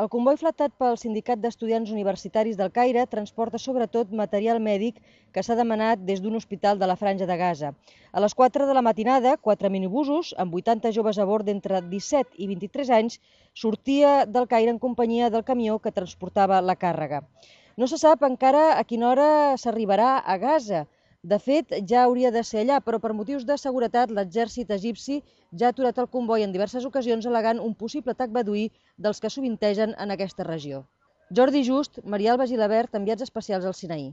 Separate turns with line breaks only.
El comboi flatat pel Sindicat d'Estudiants Universitaris del Caire transporta sobretot material mèdic que s'ha demanat des d'un hospital de la Franja de Gaza. A les 4 de la matinada, 4 minibusos, amb 80 joves a bord d'entre 17 i 23 anys, sortia del Caire en companyia del camió que transportava la càrrega. No se sap encara a quina hora s'arribarà a Gaza. De fet, ja hauria de ser allà, però per motius de seguretat l'exèrcit egipci ja ha aturat el comboi en diverses ocasions al·legant un possible atac beduí dels que sovintegen en aquesta regió. Jordi Just, Maria Alba Gilabert, enviats especials al Sinaí.